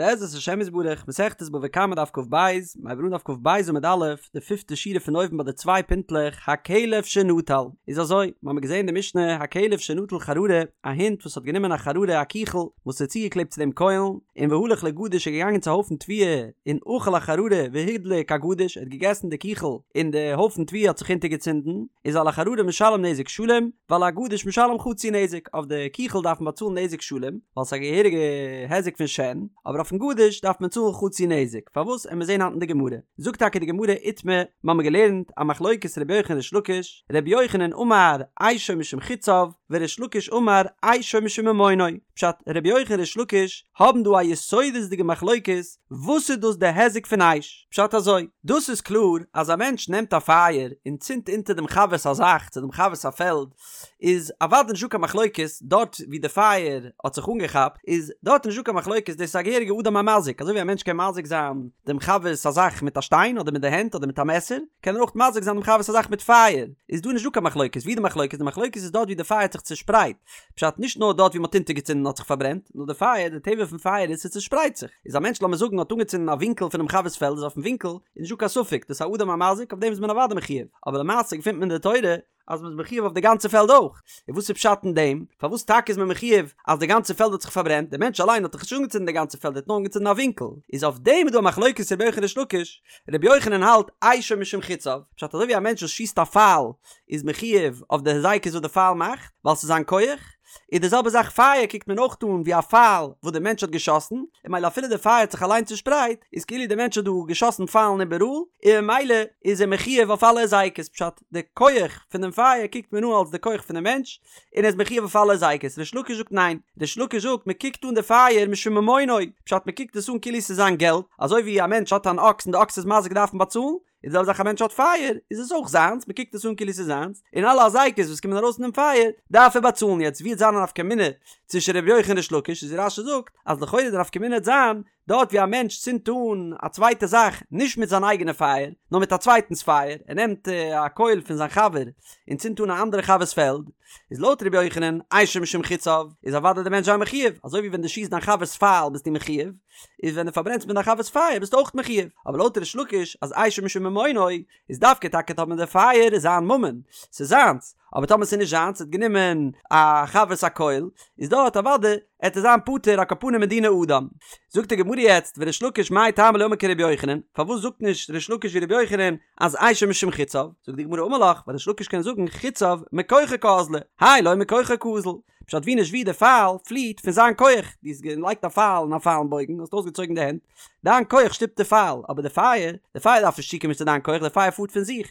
בעזרת השם יתברך, מסכת בבא קמא דף כ"ב, מ'הייבט אן דף כ"ב עמוד א', די פיפטע שורה פון אויבן ביי די צוויי פינטלעך, הכלב שנטל. איז אזוי, מ'האמיר געזען די משנה, הכלב שנטל חררה, א הונט וואס האט גענומען א חררה א קיכל, וואס איז צוגעקלעבט צו דעם קוילן, און והלך לגדיש איז געגאנגען צו א הויפן תבואה, און אכל החררה והדליק הגדיש, ער האט געגעסן די קיכל, און די הויפן תבואה האט זיך אונטערגעצינדן, איז על החררה משלם נזק שלם, ועל הגדיש משלם חצי נזק, אויף די קיכל דארף מען באצאלן נזק שלם, ווייל ס'איז א געהעריגע היזק פון שן, אבער אויפן גדיש דארף מען צאלן חצי נזק, פארוואס עמיר זעהן היינט אין די גמרא, זאגט טאקע די גמרא איתמר, מ'האמיר געלערנט א מחלוקת רבי יוחנן ריש לקיש, רבי יוחנן אמר אשו משום חציו, וריש לקיש אמר אשו משום ממונו, פשט, רבי יוחנן ריש לקיש האבן דא א יסודות'דיגע מחלוקת, וואס איז דאס די היזק פון אש? פשט אזוי, דאס איז קלאר אז א מענטש נעמט א פייער און צינדט אונטער דעם חבר'ס א זאך צו דעם חבר'ס א פעלד, איז אוודאי נישטא קיין מחלוקת דארט ווי די פייער האט זיך אנגעכאפט, איז דארט נישטא קיין מחלוקת דאס איז א געהעריגע אדם המזיק, אזוי ווי א מענטש קען מזיק זיין דעם חבר'ס א זאך מיט א שטיין אדער מיט די הענט אדער מיט א מעסער, קען ער אויך מזיק זיין דעם חבר'ס א זאך מיט פייער, איז דא נישטא קיין מחלוקת, ווי די מחלוקת? די מחלוקת איז דארט ווי די פייער האט זיך צושפרייט, פשט נישט נאר דארט ווי מ'האט אונטערגעצינדן האט זיך פארברענט, נאר די פייער, די טבע פון פייער איז ס'צושפרייט זיך, איז א מענטש לאמיר זאגן האט אנגעצינדן א ווינקל פונעם חבר'ס פעלד איז אויפן ווינקל איז נישטא קיין ספק דאס איז א אדם המזיק אויף דעם איז מען אוודאי מחויב, אבער למעשה געפינט מען אין די תורה אז מ'איז מחויב אויף די גאנצע פעלד אויך, און וואס איז פשט אין דעם? פארוואס טאקע איז מען מחויב אז די גאנצע פעלד האט זיך פארברענט, דער מענטש אליין האט דאך נישט אנגעצינדן די גאנצע פעלד ער האט נאר אנגעצינדן א ווינקל, איז אויף דעם איז דא א מחלוקת רבי יוחנן ריש לקיש, רבי יוחנן האלט אשו משום חציו, פשט אזוי ווי א מענטש וואס שיסט א פייל איז מחויב אויף די היזקות וואס די פייל מאכט, ווייל ס'איז זיין כח, איז די זעלבע זאך פייער קוקט מען אויך אן ווי א פייל וואס די מענטש האט געשאסן, און ממילא אפילו די פייער האט זיך אליין צושפרייט, איז כאילו די מענטש האט דא געשאסן פיילן איבעראל, און ממילא איז ער מחויב אויף אלע היזקות, פשט, די כח פון דעם פייער קוקט מען אן אלס די כח פונעם מענטש, און ער איז מחויב אויף אלע היזקות, ריש לקיש זאגט ניין, ריש לקיש זאגט מען קוקט אן די פייער משום ממונו, פשט מען קוקט עס אן כאילו ס'איז זיין געלט, אזוי ווי א מענטש האט אן אקס און די אקס איז מזיק דארף מען באצאלן, איז די זעלבע זאך א מענטש האט פייער איז עס אויך זיינס מען קוקט עס אן כאילו ס'איז זיינס און אלע היזקות וואס קומען ארויס פון דעם פייער דארף ער באצאלן יעצט ווי וועט זיין א נפקא מינה צווישן ר' יוחנן ריש לקיש איז רש"י זאגט אז לכאורה די נפקא מינה וועט זיין דארט ווי א מענטש צינדט אן א צווייטע זאך נישט מיט זיין אייגענע פייער נאר מיט א צווייטנס פייער ער נעמט א קויל פון זיין חבר און צינדט אן א אנדערע חבר'ס פעלד איז לויט ר' יוחנן אשו משום חציו איז אוודאי די מענטש זיין מחויב אזוי ווי ווען דו שיסט דיין חבר'ס פייל ביסטו מחויב איז ווען דו פארברענסט מיט דיין חבר'ס פייער ביסטו אויך מחויב, אבער לויט ריש לקיש אז אשו משום ממונו איז דווקא טאקע טאמער די פייער איז זיין ממון, ס'איז זיינס, אבער טאמער ס'איז נישט זיינס ער האט גענומען א חבר'ס א קויל, איז דארט אוודאי עט ער זיין פטור על כל פנים מדיני אדם. זאגט די גמרא יעצט וריש לקיש מאי טעמא לא אמר כרבי יוחנן, פארוואס זאגט נישט ריש לקיש ווי רבי יוחנן אז אשו משום חציו, זאגט די גמרא אמר לך, ווייל ריש לקיש קען זאגן חציו מכוחו קאזלי, האי לא מכוחו קאזיל, פשט ווי נישט ווי די פייל פליעט פון זיין כח, דו האסט געלייגט א פייל אין א פיילן בויגן, האסט אויסגעצויגן די הענט, דיין כח שטופט די פייל, אבער די פייער, די פייער דארף נישט צוקומען צו דיין כח, די פייער פארט פון זיך,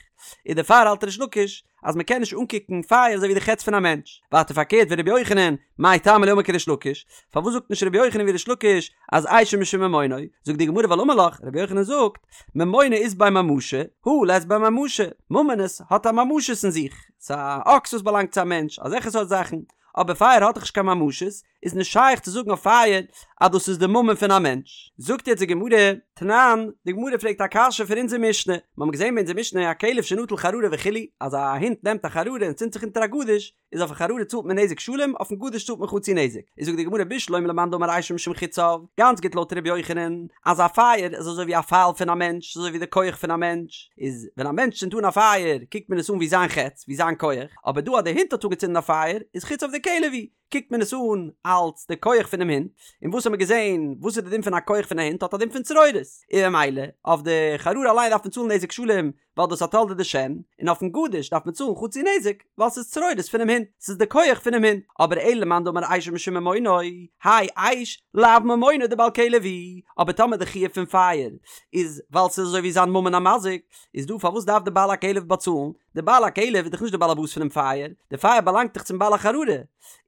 און דערפאר האלט ריש לקיש אז מען קען נישט אנקוקן פייער אזוי ווי די חץ פון א מענטש. ווייטער פארקערט ורבי יוחנן, מאי טעמא לא אמר כריש לקיש, פארוואס זאגט נישט רבי יוחנן ווי ריש לקיש אז אשו משום ממונו, זאגט די גמרא ווייל אמר לך, רבי יוחנן זאגט, ממונא אית ביה ממשא, הא לית ביה ממשא, ממונות האט א ממשות אין זיך, ס'איז א אקס וואס באלאנגט צו א מענטש, אזעלכע סארט זאכן, אבער פייער האט דאך נישט קיין ממשות, איז נישט שייך צו זאגן אויף פייער אז דאס איז די ממון פון א מענטש. זאגט יעצט די גמרא, תנן, די גמרא פרעגט א קשיא פון אונזער משנה, מיר האבן געזען ביי אונזער משנה הכלב שנטל חררה וכו', אז א הונט נעמט א חררה און צינדט זיך אונטער א גדיש, איז אויפן חררה צאלט מען נזק שלם, אויפן גדיש צאלט מען חצי נזק. איז זאגט די גמרא בשלמא למאן דאמר אשו משום חציו, גאנץ גוט לויט ר' יוחנן, אז א פייער איז אזוי ווי א פייל פון א מענטש, אזוי ווי די כח פון א מענטש, איז ווען א מענטש צינדט אן א פייער קוקט מען עס אן ווי זיין חץ, ווי זיין כח, אבער דא אז די הונט האט אנגעצינדן א פייער, איז חציו דכלב הוא, קוקט מען עס אן אלץ די כח פונעם הונט, און וואס האט מען געזען, וואס איז די דין פון א כח פון א הונט, האט א דין פון צרורות, און ממילא אויף די חררה אליין דארף מען צאלן נזק שלם, ווייל דאס א תולדה דשן, און אויפן גדיש דארף מען צאלן חצי נזק, ווייל ס'איז צרורות פונעם הונט, ס'איז די כח פונעם הונט, אבער אלא למאן דאמר אשו משום ממונו, האי אש לאו ממונו דבעל כלב הוא, אבער טאמער די חיוב פון פייער איז ווייל ס'איז אזוי ווי זיין ממון המזיק, איז דא פארוואס דארף די בעל הכלב באצאלן? די בעל הכלב איז דאך נישט די בעל הבית פונעם פייער, די פייער באלאנגט דאך צום בעל החררה,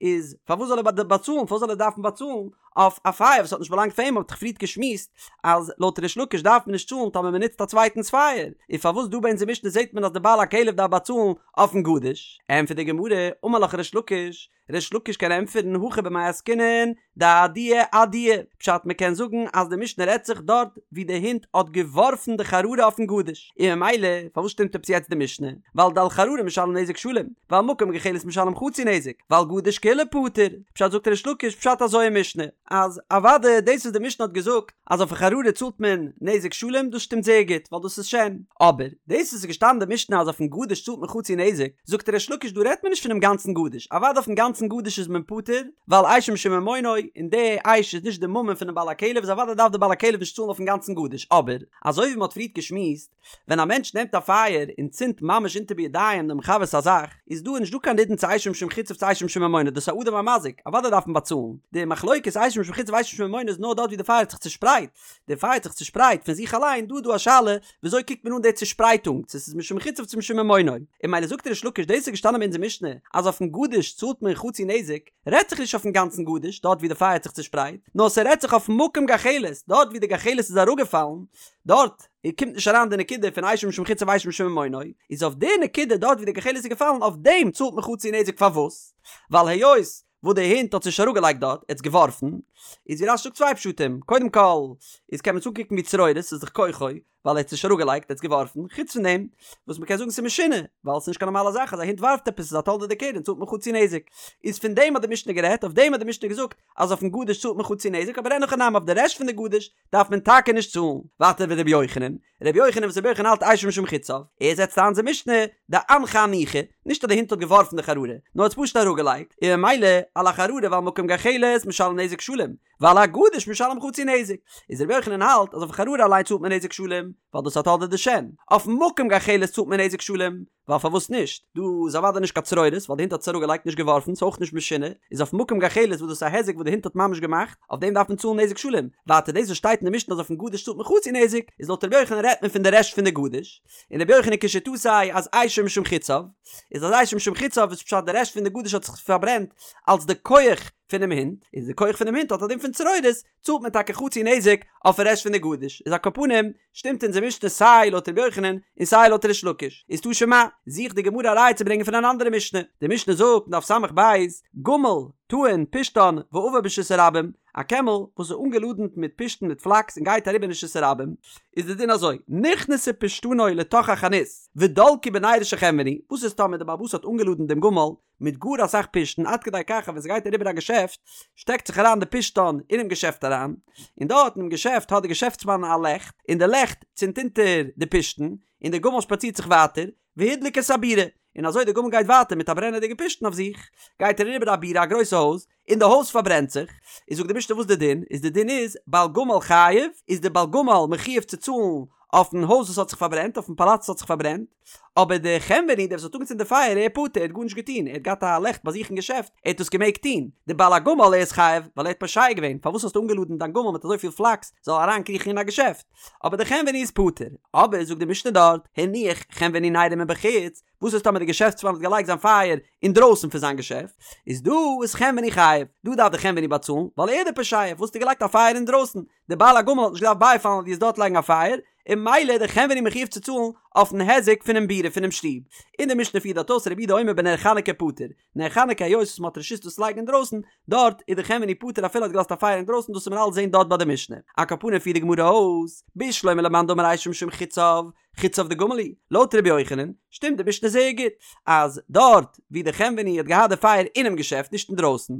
איז פארוואס זאל ער באצאלן, פארוואס זאל ער דארפן באצאלן אויף א פייער וואס האט נישט באלאנגט פאר אים, מ'האט דאך פריערט געשמועסט אז לויט ריש לקיש דארף מען נישט צאלן טאמער מען נוצט א צווייטנס פייער, און פארוואס דא ביי אונזער משנה זעט מען אז די בעל הכלב דארף באצאלן אויפן גדיש? ענטפערט די גמרא, אמר לך ריש לקיש, ריש לקיש קען ענטפערן הכא במאי עסקינן דאדייה אדייה, פשט מען קען זאגן אז די משנה רעדט זיך דארט ווי די הונט האט געווארפן די חררה אויפן גדיש, און ממילא פארוואס שטימט עפעס יעצט די משנה? ווייל דעל חררה משלם נזק שלם, ועל מקום גחלת משלם חצי נזק, ועל גדיש כולו פטור, פשט זאגט ריש לקיש פשט אזוי אין משנה. אז אוודאי דאס וואס די משנה האט געזאגט אז אויפן חררה צאלט מען נזק שלם דאס שטימט זייער גוט ווייל דאס איז שן, אבער דאס וואס איז געשטאנען אין די משנה אז אויפן גדיש צאלט מען חצי נזק, זאגט ריש לקיש דא רעדט מען נישט פונעם גאנצן גדיש, אוודאי אויפן גאנצן גדיש איז מען פטור ווייל אשו משום ממונו און די אש איז נישט די ממון פונעם בעל הכלב איז אוודאי דארף די בעל הכלב נישט צאלן אויפן גאנצן גדיש, אבער אזוי ווי מען האט פריערט געשמועסט ווען א מענטש נעמט א פייער און צינדט ממש אונטער בידיים דעם חבר'ס א זאך, איז דא נישט דא קיין נידון צו אשו משום חציו צו אשו משום ממונו, דאס איז א אדם המזיק, אוודאי דארף מען באצאלן. די מחלוקת אשו משום חציו אשו משום ממונו איז נאר דארט ווי די פייער האט זיך צושפרייט, די פייער האט זיך צושפרייט פון זיך אליין, דא איז דא א שאלה וויאזוי קוקט מען אן די צושפרייטונג, צו ס'איז משום חציו צו משום ממונו. און ממילא זאגט ריש לקיש דאס איז געשטאנען ביי אונזער משנה אז אויפן גדיש צאלט מען חצי נזק, רעדט זיך נישט אויפן גאנצן גדיש דארט ווי די פייער האט זיך צושפרייט, נאר ס'רעדט זיך אויפן מקום גחלת, דארט ווי די גחלת איז אראפגעפאלן, דארט קומט נישט אריין די נקודה פון אשו משום חציו אשו משום ממונו, איז אויף די נקודה דארט ווי די גחלת איז געפאלן אויף דעם צאלט מען חצי נזק פארוואס? ווייל היות וואס די הונט האט עס נישט אראפגעלייגט דארט, ער האט עס געווארפן, איז ווי רש"י זאגט צוויי פשטים, קודם כל איז קען מען עס אנקוקן ווי צרורות, ס'איז דאך כוחו, ווייל ער האט עס נישט אראפגעלייגט, ער האט עס געווארפן, חוץ פון דעם וואס מ'קען זאגן ס'איז משונה, ווייל ס'איז נישט קיין נארמאלע זאך אז א הונט ווארפט עפעס ס'איז א תולדה דקרן צאלט מען חצי נזק, איז פון דעם האט די משנה גערעדט, אויף דעם האט די משנה געזאגט אז אויפן גדיש צאלט מען חצי נזק, אבער אין הכי נמי אויף די רעשט פון די גדיש דארף מען טאקע נישט צאלן. ווייטער ורבי יוחנן, רבי יוחנן וואס רבי יוחנן האלט אשו משום חציו, ער זעצט איין אונזער משנה דאנחה אנוחי, נישט אז די הונט האט געווארפן די חררה, נאר האט עס פשוט אראפגעלייגט, און ממילא על החררה ועל מקום גחלת משלם נזק שלם, ועל הגדיש משלם חצי נזק. איז רבי יוחנן האלט אז אויף חררה אליין צאלט מען נזק שלם, ווייל דאס איז א תולדה דשן, אויפן מקום גחלת צאלט מען נזק שלם, ווייל פארוואס נישט? דא איז אוודאי נישט קיין צרורות, ווייל די הונט האט עס אראפגעלייגט נישט געווארפן, ס'איז אויך נישט משונה, איז אויף מקום גחלת וואס דאס איז א היזק וואס די הונט האט ממש געמאכט, אויף דעם דארף מען צאלן נזק שלם, ווייטער דאס וואס שטייט אין די משנה אז אויפן גדיש צאלט מען חצי נזק, איז לויט רבי יוחנן רעדט מען פון די רעשט פון די גדיש, און רבי יוחנן כשיטתו אז אשו משום חציו, איז אז אשו משום חציו איז פשט די רעשט פון די גדיש האט זיך פארברענט אלס די כח פונעם הונט, איז די כח פונעם הונט האט א דין פון צרורות, צאלט מען טאקע חצי נזק אויפן רעשט פון די גדיש, איז על כל פנים שטימט אונזער משנה סיי לויט רבי יוחנן און סיי לויט ריש לקיש, איז תא שמע, זוכט די גמרא א ראיה צו ברענגען פון אן אנדערע משנה, די משנה זאגט אין דף ס"ב, גמל טעון פשתן ועבר ברשות הרבים, א קעמל וואס איז אנגעלאדענט מיט פשתן מיט פלאקס און גייט אריבער אין רשות הרבים, איז די דין אזוי, נכנסה פשתנו לתוך החנות ודלקו בנרו של חנווני, וואס איז טאמער די בעל הבית האט אנגעלאדענט דעם גמל מיט גאר אסאך פשתן עד כדי כך אז ווען ס'גייט אריבער א געשעפט שטעקט זיך אריין די פשתן אינעם געשעפט אריין, און דארט אינעם געשעפט האט די געשעפטסמאן א לעכט, און די לעכט צינדט אונטער די פשתן, און די גמל שפאצירט זיך ווייטער, והדליק את הבירה, און אזוי די גמל גייט ווייטער מיט א ברענעדיגע פשתן אויף זיך, גייט ער אריבער א בירה א גרויסע הויז, און די הויז פארברענט זיך, איז זאגט די משנה וואס די דין איז, די דין איז בעל גמל חייב, איז די בעל גמל מחויב צו צאלן אויפן הויז וואס האט זיך פארברענט, אויפן פאלאץ וואס האט זיך פארברענט, אבער די חנווני דער וואס האט אנגעצינדן די פייער ער איז פטור, ער האט גארנישט געטון, ער האט געהאט א לעכט ביי זיך אין געשעפט, ער האט עס געמעגט טון, די בעל הגמל ער איז חייב, ווייל ער האט פושע געווען, פארוואס האסטו אנגעלאדענט דיין גמל מיט אזויפיל פלאקס זאל אריינקריכן אין א געשעפט, אבער די חנווני איז פטור, אבער זאגט די משנה דארט, הניח חנווני נרו מבחוץ, וואס איז טאמער די געשעפטסמאן האט געלייגט זיין פייער אינדרויסן פון זיין געשעפט, איז דא איז חנווני חייב, דא דארף די חנווני באצאלן, ווייל ער איז די פושע, וואס האסטו געלייגט א פייער אינדרויסן, די בעל הגמל האט נישט געדארפט בייפאלן אז דו וועסט דארט לייגן א פייער, און ממילא איז די חנווני מחויב צו צאלן אויפן היזק פונעם בירה פונעם שטוב. און די משנה פירט דארט אויס רבי יהודה אומר בנר חנוכה פטור, נר חנוכה היות וואס מ'האט רשות דאס לייגן אינדרויסן, דארט איז די חנווני פטור אפילו האט געלאזט א פייער אינדרויסן דאס וועט מען אלץ זעהן דארט ביי די משנה. על כל פנים פירט די גמרא אויס, בשלמא למאן דאמר אשו משום חציו, חציו דגמל הוא, לויט רבי יוחנן, שטימט די משנה זייער גוט, אז דארט ווי די חנווני האט געהאט די פייער אינעם געשעפט נישט אינדרויסן,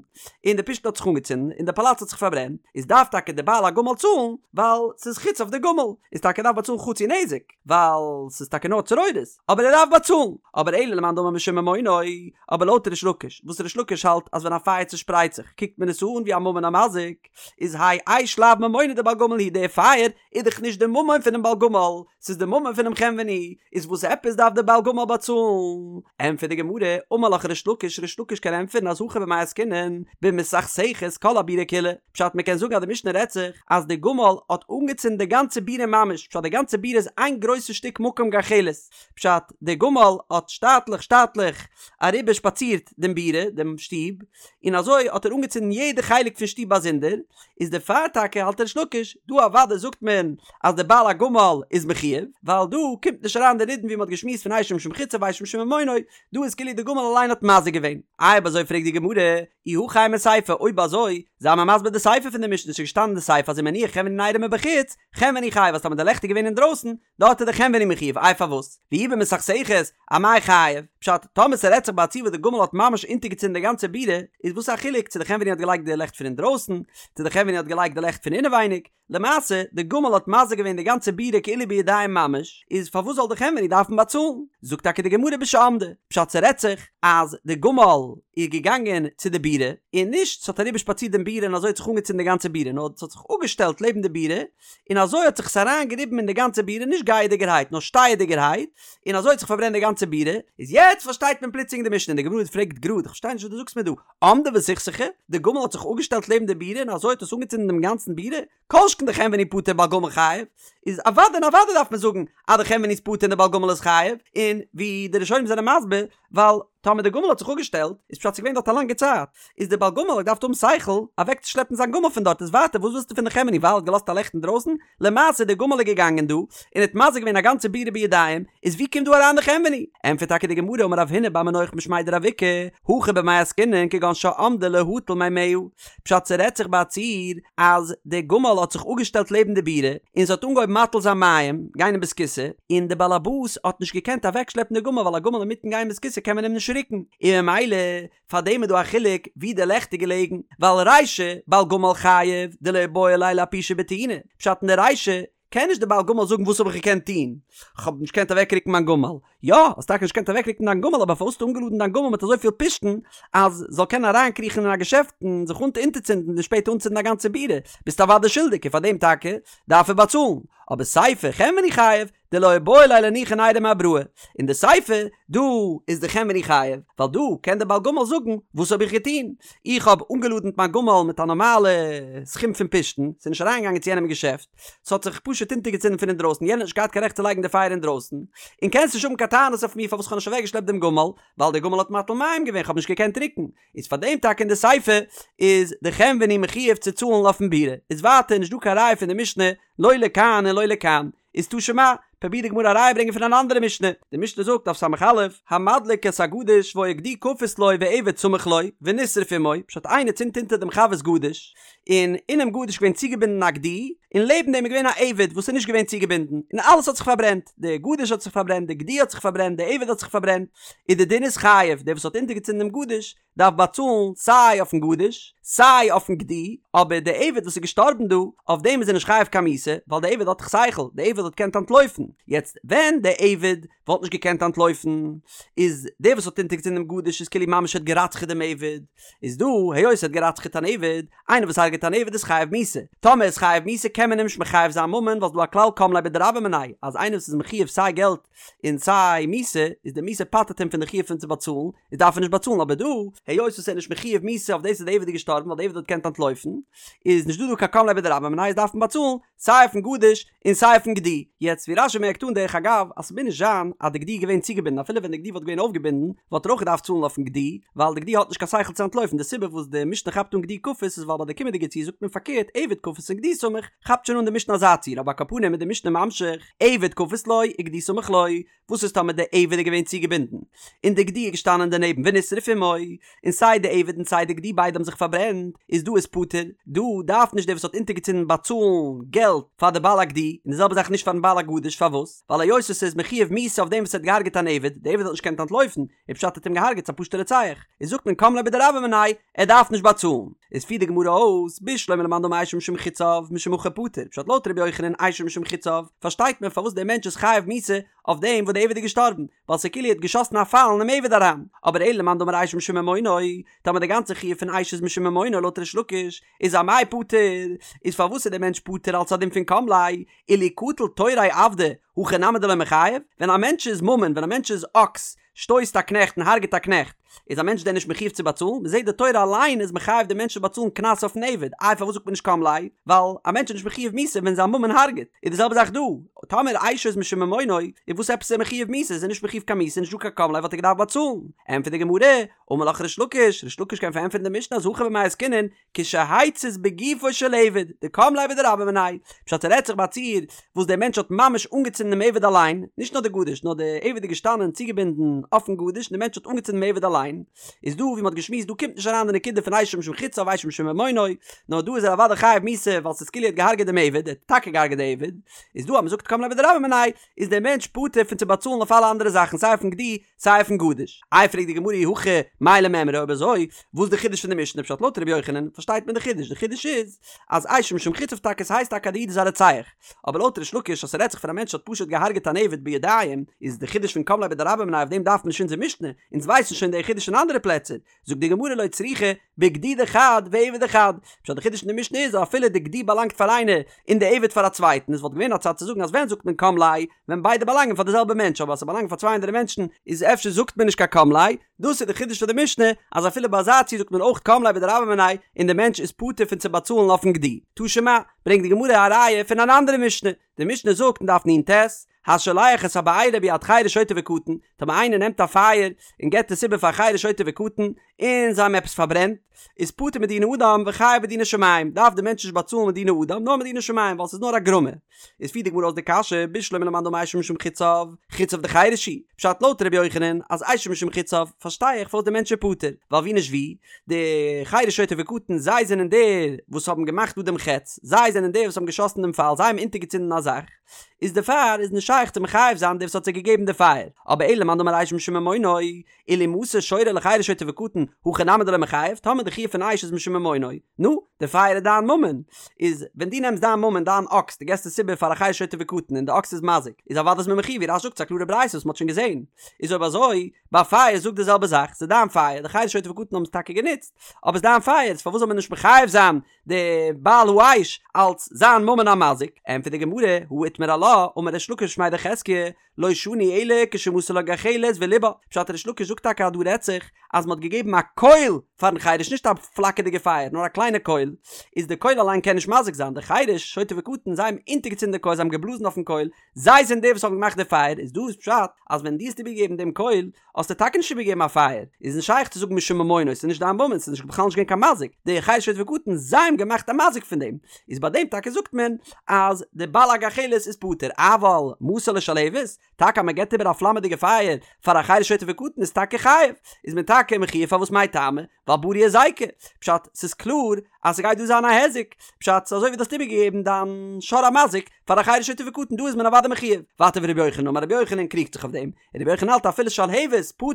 און די פשתן האט זיך אנגעצינדן און די פאלאץ האט זיך פארברענט, איז דארף טאקע די בעל הגמל צאלן, ווייל ס'איז חציו דגמל, איז טאקע דארף באצאלן חצי נזק, ווייל ס'איז טאקע נאר צרורות, אבער ער דארף באצאלן, אבער אלא למאן דאמר משום ממונו, אבער לויט ריש לקיש, וואס ריש לקיש האלט אז ווען א פייער צושפרייט זיך קוקט מען עס אן ווי א ממון המזיק, איז האי אש לאו ממונא דבעל גמל הוא די פייער איז דאך נישט די ממון פונעם בעל גמל, ס'איז די ממון פונעם חנווני, איז וואס עפעס דארף די בעל גמל באצאלן? ענטפערט די גמרא, אמר לך ריש לקיש, ריש לקיש קען ענטפערן אז הכא במאי עסקינן במסכסכת כל הבירה כולה, פשט מ'קען זאגן אז די משנה רעדט זיך אז די גמל האט אנגעצינדן די גאנצע בירה ממש, פשט די גאנצע בירה איז איין גרויסע שטיק מקום גחלת, פשט די גמל האט שטאטליך שטאטליך אריבער שפאצירט דעם בירה, דעם שטוב, און אזוי האט ער אנגעצינדן יעדע חלק פון שטוב באזונדער, איז דערפאר טאקע האלט ריש לקיש, דא אוודאי זאגט מען אז דער בעל הגמל איז מחויב, ווייל דא קומט נישט אריין די נידון ווי מען האט געשמועסט פון אשו משום חציו ואשו משום ממונו, דא איז כאילו די גמל אליין האט מזיק געווען. איי אויב אזוי פרעגט די גמרא, אי הכי אימא סיפא, אויב אזוי, זיי מיר מסביר די סיפא פון די משנה, ס'איז געשטאנען אין די סיפא אז אם הניח חנווני נרו מבחוץ, חנווני חייב, אז טאמער די לעכט איז געווען אינדרויסן, דארט איז די חנווני מחויב, איי פארוואס? ואי במסכסכת, אמאי חייב? פשט, טאמער ס'רעדט זיך ביי א ציור וואס די גמל האט ממש אונטערגעצינדן די גאנצע בירה, איז וואס א חילוק צו די חנווני האט געלייגט די לעכט פון אינדרויסן, צו די חנווני האט געלייגט די לעכט פון אינעווייניג, למעשה, די גמל האט מזיק געווען די גאנצע בירה כאילו בידיים ממש, איז פארוואס זאל די חנווני דארפן באצאלן? זאגט טאקע די גמרא בשעמדה, פשט ס'רעדט זיך אז די גמל איז געגאנגען צו די בירה, און נישט ס'האט אריבער שפאצירט דעם בירה און אזוי האט זיך אנגעצינדן די גאנצע בירה, נאר ס'האט זיך אפגעשטעלט לעבן די בירה, און אזוי האט זיך עס אריין געריבן אין די גאנצע בירה נישט גייעדיגערהייט נאר שטייעדיגערהייט, און אזוי האט זיך פארברענט די גאנצע בירה, איז יעצט פארשטייט מען פלוצלינג די משנה, און די גמרא פרעגט גראד, איך פארשטיי נישט וואס דו זאגסט מיר דא, עמדה וסכסכה, די גמל האט זיך אפגעשטעלט לעבן די בירה און אזוי האט עס אנגעצינדן דעם גאנצן בירה, כל שכן דחנווני פטור בעל גמל חייב, איז אוודאי און אוודאי דארף מען זאגן אז די חנווני איז פטור און די בעל גמל איז חייב, און ווי די ראשונים זענען מסביר, ווייל טאמער די גמל האט זיך אפגעשטעלט, איז פשט ס'איז געווען דארט א לאנגע צייט, איז די בעל גמל האט געדארפט האבן שכל אוועקצושלעפן זיין גמל פון דארט, איז ווייטער וואס ווילסטו פון די חנווני ווייל ער האט געלאזט א לעכט אינדרויסן, למעשה די גמל איז געגאנגען דא און האט מזיק געווען א גאנצע בירה בידיים, איז ווי קומט דא אריין די חנווני? ענטפערט טאקע די גמרא אמר רב הונא בר מנוח משמיה דרב איקא, הכא במאי עסקינן כגון שעמדה להטיל מימיה, פשט ס'רעדט זיך ביי א ציור אז די גמל האט זיך אפגעשטעלט לעבן די בירה און ס'האט אנגעהויבן מטיל זיין מים, גיין אין בית הכסא, און די באלעבאס האט נישט געקענט אוועקשלעפן די גמל ווייל א גמל אינמיטן גיין בית הכסא קען מען אים נישט רוקן, און ממילא פאר דעם איז דא א חילוק ווי די לעכט איז געלעגן, ווייל רישא בעל גמל חייב דלא איבעי ליה לאפושי בטעינה, פשט אין די רישא קען נישט די בעל גמל זאגן וואס האב איך געקענט טון, כ'האב נישט געקענט אוועקרוקן מיין גמל, יא, האסט טאקע נישט געקענט אוועקרוקן דיין גמל אבער פארוואס האסטו אנגעלאדן דיין גמל מיט אזויפיל פשתן אז זאל קענען אריינקריכן אין א געשעפט און זיך אונטערצינדן און שפעטער אנצינדן א גאנצע בירה, ביסט אוודאי שולדיג און פאר דעם טאקע דארף ער באצאלן, אבער סיפא חנווני חייב, דלא איבעי ליה לאנוחי נריה מאבראי, אין די סיפא דא איז די חנווני חייב, ווייל דא קען די בעל גמל זאגן וואס האב איך געטון, איך האב אנגעלאדנט מיין גמל מיט א נארמאלע סכום פון פשתן, ס'איז נישט אריינגעגאנגען צו יענעם אין געשעפט, ס'האט זיך פשוט אונטערגעצינדן פון אינדרויסן, יענער האט נישט געהאט קיין רעכט צו לייגן די פייער אינדרויסן, און קענסט נישט האבן קיין טענות אויף מיר פארוואס כ'האב נישט אוועקגעשלעפט דעם גמל, ווייל דער גמל האט מטיל מים געווען, כ'האב נישט געקענט רוקן, איז פאר דעם טאקע אין די סיפא איז די חנווני מחויב צו צאלן אויפן בירה, איז ווייטער נישט דא קיין ראיה פון די משנה לא לכאן און לא לכאן, איז תא שמע, פרובירט די גמרא א ראיה ברענגען פון אן אנדערע משנה, די משנה זאגט דף ס"א, המדליק את הגדיש והיה גדי כפות לו ועבד סמוך לו, ונשרף עמו, פשט איינער צינדט אונטער דעם חבר'ס גדיש, און אינעם גדיש איז געווען צוגעבינדן א גדי, און לעבן דעם איז געווען א עבד וואס איז נישט געווען צוגעבינדן, און אלעס האט זיך פארברענט, די גדיש האט זיך פארברענט, די גדי האט זיך פארברענט, די עבד האט זיך פארברענט, איז די דין איז חייב, דער וואס האט אונטערגעצינדן דעם גדיש, דארף באצאלן סיי אויפן גדיש סיי אויפן גדי, אבער די עבד וואס איז געשטארבן דא, אויף דעם איז ער נישט חייב קיין מיתה, ווייל די עבד האט דאך שכל, די עבד האט געקענט אנטלויפן, יעצט ווען די עבד וואלט נישט געקענט אנטלויפן, איז דער וואס האט אונטערגעצינדן דעם גדיש איז כאילו ממש האט גע'רצח'עט דעם עבד, איז דא, היות ער האט גע'רצח'עט אן עבד, איינער וואס הרג'עט אן עבד איז חייב מיתה, טאמער איז חייב מיתה קען מען אים נישט מחייב זיין ממון, ווייל ס'דא א כלל קם ליה בדרבה מיניה, אז איינער וואס איז מחויב סיי געלט און סיי מיתה, איז די מיתה פטר'ט אים פון די חיוב פון צו באצאלן, איז דארף ער נישט באצאלן, אבער דא, היות וואס ער איז נישט מחויב מיתה אויף דאס אז די עבד איז געשטארבן ווייל די עבד האט געקענט אנטלויפן, איז נישט דא דא קיין קם ליה בדרבה מיניה איז דארף מען באצאלן סיי אויפן גדיש און סיי אויפן גדי. יעצט ווי רש"י מערקט אן דרך אגב אז ס'מוז נישט זיין אז די גדי איז געווען צוגעבינדן אפילו ווען די גדי וואלט געווען אויפגעבינדן וואלט ער אויך געדארפט צאלן אויפן גדי ווייל די גדי האט נישט קיין שכל צו אנטלויפן די סיבה וואס די משנה כאפט אן גדי כפות איז ווייל ביי די קומענדיגע ציור זאגט מען פארקערט עבד כפות און גדי סמוך כאפט שוין אן די משנה אזא ציור אבער על כל פנים איז די משנה ממשיך עבד כפות לו וגדי סמוך לו וואס איז טאמער די עבד איז געווען צוגעבינדן און די גדי איז געשטאנען דערנעבן ונשרף עמו, און סיי די עבד און סיי די גדי ביידע האבן זיך פארברענט, איז דא איז פטור, דא דארף נישט דער וואס האט אונטערגעצינדן באצאלן געלט פאר די בעל הגדי, און די זעלבע זאך נישט פארן בעל הגדיש, פארוואס? ווייל היות עס איז מחויב מיתה אויף דעם וואס האט געהארגעט אן עבד, די עבד האט נישט געקענט אנטלויפן, און פשט האט אים געהארגעט ס'איז א פשוטע רוצח, איז זאגט מען קם ליה בדרבה מיניה, ער דארף נישט באצאלן. איז פירט די גמרא אויס, בשלמא למאן דאמר אשו משום חציו, משום הכי פטור, פשט לויט ר' יוחנן אשו משום חציו, פארשטייט מען פארוואס דער מענטש איז חייב מיתה אויף דעם וואס דער עבד איז געשטארבן, ווייל ס'איז כאילו ער האט געשאסן א פייל אינעם עבד אריין, אבער אלא למאן דאמר אשו משום ממונו, טאמער די גאנצע חיוב פון אש איז משום ממונו לויט ריש לקיש, איז אמאי פטור, איז פארוואס איז דער מענטש פטור אלס א דין פון קם ליה, אילו קטיל תוריה עבדא, הכי נמי דלא מיחייב, ווען א מענטש איז ממון, ווען א מענטש איז אקס, שטויסט א קנעכט און הרג'ט א קנעכט, איז א מענטש דען נישט מחויב צו באצאלן? מען זעט די תורה אליין איז מחייב די מענטש צו באצאלן קנס אויפן עבד, איי פארוואס זאגט מען נישט קם ליה? ווייל א מענטש איז נישט מחויב מיתה ווען זיין ממון הרג'ט, איז די זעלבע זאך דא, טאמער אשו איז משום ממונו, איז וואס עפעס איז ער מחויב מיתה? איז ער נישט מחויב קיין מיתה, נישט דא קיין קם ליה וואלט ער געדארפט באצאלן. ענטפערט די גמרא, אמר לך ריש לקיש, ריש לקיש קען פארענטפערן די משנה אז הכא במאי עסקינן, כשהצית בגופו של עבד, דקם ליה בדרבה מיניה, פשט ס'רעדט זיך ביי א ציור וואס דער מענטש האט ממש אנגעצינדן דעם עבד אליין, נישט נאר די גדיש, נאר דער עבד איז געשטאנען צוגעבינדן אויפן גדיש און דער מענטש האט אנגעצינדן דעם עבד אליין. אליין, איז דא ווי מ'האט געשמועסט דא קומט נישט אריין די נקודה פון אשו משום חציו אשו משום ממונו, נאר דא איז ער אוודאי חייב מיתה ווייל ס'איז כאילו ער האט געהארגעט דעם עבד, ער האט טאקע געהארגעט די עבד, איז דא אז מ'זאגט קם ליה בדרבה מיניה איז דער מענטש פטור פון צו באצאלן אויף אלע אנדערע זאכן סיי אויפן גדי סיי אויפן גדיש. איי פרעגט די גמרא אי הכי מאי למימרא אויב אזוי וואס די חידוש פון די משנה פשט לויט ר' יוחנן פארשטייט מען די חידוש די חידוש איז אז אשו משום חציו טאקע ס'הייסט טאקע אז די איד איז א רוצח אבער לויט ריש לקיש אז ס'רעדט זיך פון א מענטש האט פשוט געהארגעט אן עבד בידיים איז די חידוש פון קם ליה בדרבה מיניה אויף דעם דארף מען נישט אונזער משנה אונז ווייסן שוין די חידוש אין אנדערע פלעצער זאגט די גמרא לא צריכא בגדי דחד ועבד דחד, פשט די חידוש אין די משנה איז אז אפילו די גדי באלאנגט פאר איינער און די עבד פאר א צווייטן, עס וואלט געווען א צד צו זאגן אז ווען זאגט מען קם ליה ווען ביידע באלאנגען פאר די זעלבע מענטש אבער אז ס'באלאנגט פאר צוויי אנדערע מענטשן איז אפשר זאגט מען נישט קיין קם ליה, דאס איז די חידוש פון די משנה אז אפילו ביי אזא ציור זאגט מען אויך קם ליה בדרבה מיניה און די מענטש איז פטור פון צו באצאלן אויפן גדי. תא שמע, ברענגט די גמרא א ראיה פון אן אנדערע משנה, די משנה זאגט אין דף נ"ט, השולח את הבעירה ביד חרש שוטה וקטן, טאמער איינער נעמט א פייער און געבט עס איבער פאר חרש שוטה וקטן, און זיי האבן עפעס פארברענט, איז פטור מדיני אדם וחייב בדיני שמים, דארף דער מענטש נישט באצאלן מדיני אדם נאר מדיני שמים ווייל ס'איז נאר א גרמא. איז פירט די גמרא אויס די קשיא, בשלמא למאן דאמר אשו משום חציו, חציו דחרש הוא, פשט לויט ר' יוחנן אז אשו משום חציו, פארשטיי איך פארוואס דער מענטש איז פטור, ווייל ווי נישט ווי, די חרש שוטה וקטן זיי זענען די וואס האבן געמאכט דא דעם חץ, זיי זענען די וואס האבן געשאסן דעם פייל, זיי האבן אונטערגעצינדן א זאך, איז דערפאר איז נישט שייך צו מחייב זיין דער וואס האט זיי געגעבן די פייער, אבער אלא למאן דאמר אשו משום ממונו, אילו מסר שורו לחרש שוטה וקטן, הכי נמי דלא מיחייב, טאמער די חיוב פון אש איז משום ממונו, נו, די פייער איז דיין ממון, איז ווען דו נעמסט דיין ממון דיין אקס דו געסט עס איבער פאר א חרש שוטה וקטן און די אקס איז מזיק, איז אוודאי איז מען מחויב ווי רש"י זאגט ס'איז א קלארע ברייתא וואס מ'האט שוין געזען, איז אויב אזוי, ביי פייער זאג די זעלבע זאך, ס'איז דיין פייער, די חרש שוטה וקטן האבן עס טאקע גענוצט, אבער ס'איז דיין פייער, איז פארוואס זאל מען נישט מחייב זיין די בעל האש אלץ זיין ממון המזיק, ענטפערט די גמרא, הא איתמר עלה, אמר ריש לקיש משמיה דחזקיה, לא שנו אלא כשמסר לו גחלת וליבה, פשט ריש לקיש זאגט טאקע אז דא רעדט זיך אז מען האט געגעבן א קויל פארן חרש נישט א פלאקערדיגע פייער נאר א קליינע קויל, איז די קויל אליין קען נישט מזיק זיין, די חרש, שוטה וקטן, זיי האבן אונטערגעצינדן די קויל זיי האבן געבלאזן אויפן קויל, זיי זענען די וואס האבן געמאכט די פייער, איז דא איז פשט אז ווען דו האסט איבערגעגעבן דעם קויל האסטו טאקע נישט איבערגעגעבן א פייער, איז נישט שייך צו זאגן משום ממונו, ס'איז נישט דיין ממון, ס'איז נישט בכלל נישט געווען קיין מזיק, די חרש שוטה וקטן זיי האבן געמאכט א מזיק פון דעם, איז ביי דעם טאקע זאגט מען אז די בעל הגחלת איז פטור, אבל מסר לו שלהבת, טאקע אז מען געבט איבער א פלאמעדיגע פייער פאר א חרש שוטה וקטן איז טאקע חייב, איז מען טאקע מחויב פארוואס מאי טעמא, ווייל ברי היזיקא, פשט ס'איז קלאר אז ס'גייט דא זיין א היזק, פשט ס'איז אזוי ווי דו האסט איבערגעגעבן דיין שור המזיק פאר א חרש שוטה וקטן דא איז מען אוודאי מחויב, ווייטער ורבי יוחנן אמר רבי יוחנן קריגט זיך אויף דעם, און רבי יוחנן האלט אפילו שלהבת פטור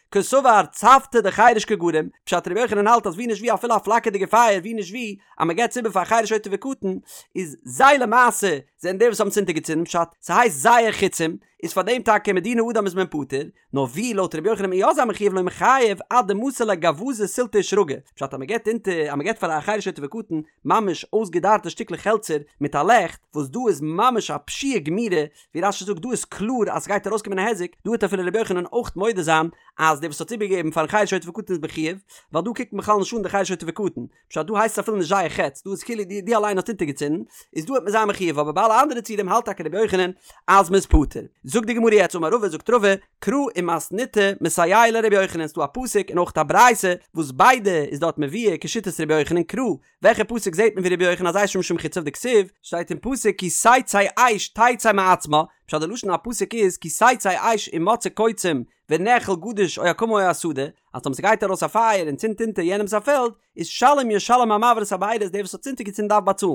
קסבר צבתא דחרש קא גרים, פשט רבי יוחנן האלט אז ווי נישט ווי אפילו א פלאקערדיגע פייער ווי נישט ווי אז מ'געבט עס איבער פאר א חרש שוטה וקטן איז זיי למעשה זענען די וואס האבן עס אונטערגעצינדן פשט ס'הייסט זייער חיצים איז פאר דעם טאקע מדיני אדם איז מען פטור, נאר ווי לויט רבי יוחנן וועט מען יא זיין מחויב לא מיחייב עד דמסר ליה גווזא סילתא ושרגא, פשט אז מ'געבט אונטער אז מ'געבט פאר א חרש שוטה וקטן ממש אויסגעדארטע שטיקלעך העלצער מיט א לעכט, וואס דא איז ממש א פשיעה גמירה, ווי רש"י זאגט דא איז קלאר אז ס'גייט ארויסקומען א היזק, דא וועט אפילו רבי יוחנן אויך מודה זיין אז דער וואס האט איבערגעגעבן פארן חרש שוטה וקטן איז מחויב, ווייל דא קוקט מען בכלל נישט אן די חרש שוטה וקטן, פשט דא הייסט עס אפילו נישט זייער חץ, דא איז כאילו דו אליין האסט אונטערגעצינדן, איז דא וועט מען זיין מחויב, אבער ביי אלע אנדערע ציורים האלט טאקע רבי יוחנן אז מ'איז פטור. זאגט די גמרא יעצט אמר רבא זאגט רבא, קרא ומתניתא מסייע ליה לרבי יוחנן ס'דא א פסוק און אויך א ברייתא וואס ביידע איז דארט מבואר כשיטת רבי יוחנן קרא וועלכע פסוק זעט מען ווי רבי יוחנן אז אשו משום חציו דכתיב שטייט אין פסוק כי תצא אש תצא מעצמה פשט די לשון הפסוק איז כי תצא אש ומצאה קוצים ונאכל גדיש או הקמה או השדה אז טאמער ס'גייט ארויס א פייער און צינדט אונטער יענעמס א פעלד איז שלם ישלם המבעיר את הבערה איז דער וואס האט אונטערגעצינדן דארף באצאלן.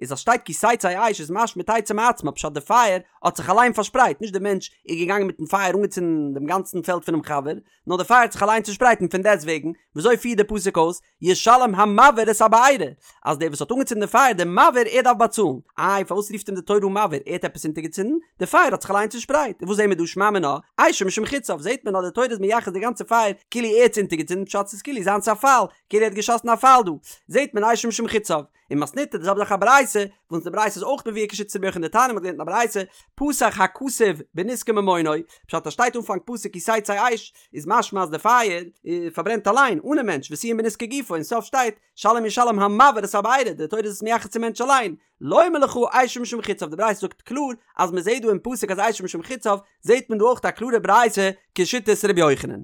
איז אז שטייט כי תצא אש איז משמע תצא מעצמה פשט די פייער האט זיך אליין פארשפרייט נישט די מענטש איז געגאנגען מיטן פייער אנגעצינדן דעם גאנצן פעלד פונעם חבר נאר די פייער האט זיך אליין צושפרייט און פון דעסט וועגן וויאזוי פירט די פסוק אויס ישלם המבעיר את הבערה אז דער וואס האט אנגעצינדן די פייער דער מבעיר ער דארף באצאלן. איי פארוואס רופט אים די תורה אן מבעיר ער האט עפעס אונטערגעצינדן? די פייער האט זיך אליין צושפרייט און וואס זעהן מיר דא שמע מינה אשו משום חציו זעהט מען אז די תורה איז מייחס די גאנצע פייער כאילו ער האט עס אונטערגעצינדן פשט ס'איז כאילו זיינס א פייל כאילו ער האט געשאסן א פייל דא זעהט מען אשו משום חציו און מתניתא די זעלבע זאך א ברייתא וואס די ברייתא איז אויך מבואר כשיטת רבי יוחנן דתניא מ'האט געלערנט אין א ברייתא פתח הכתוב בנזקי ממונו פשט אז שטייט אנפאנג פסוק כי תצא אש איז משמע אז די פייער פארברענט אליין אנעם מענטש וסיים בנזקי גופו אין סוף שטייט שלם ישלם המבעיר את הבערה די תורה איז עס מייחס צום מענטש אליין לומר לך אשו משום חציו די ברייתא זאגט קלאר אז מען זעהט דא אין פסוק אז אשו משום חציו זעהט מען דא אויך א קלארע ברייתא כשיטת רבי יוחנן.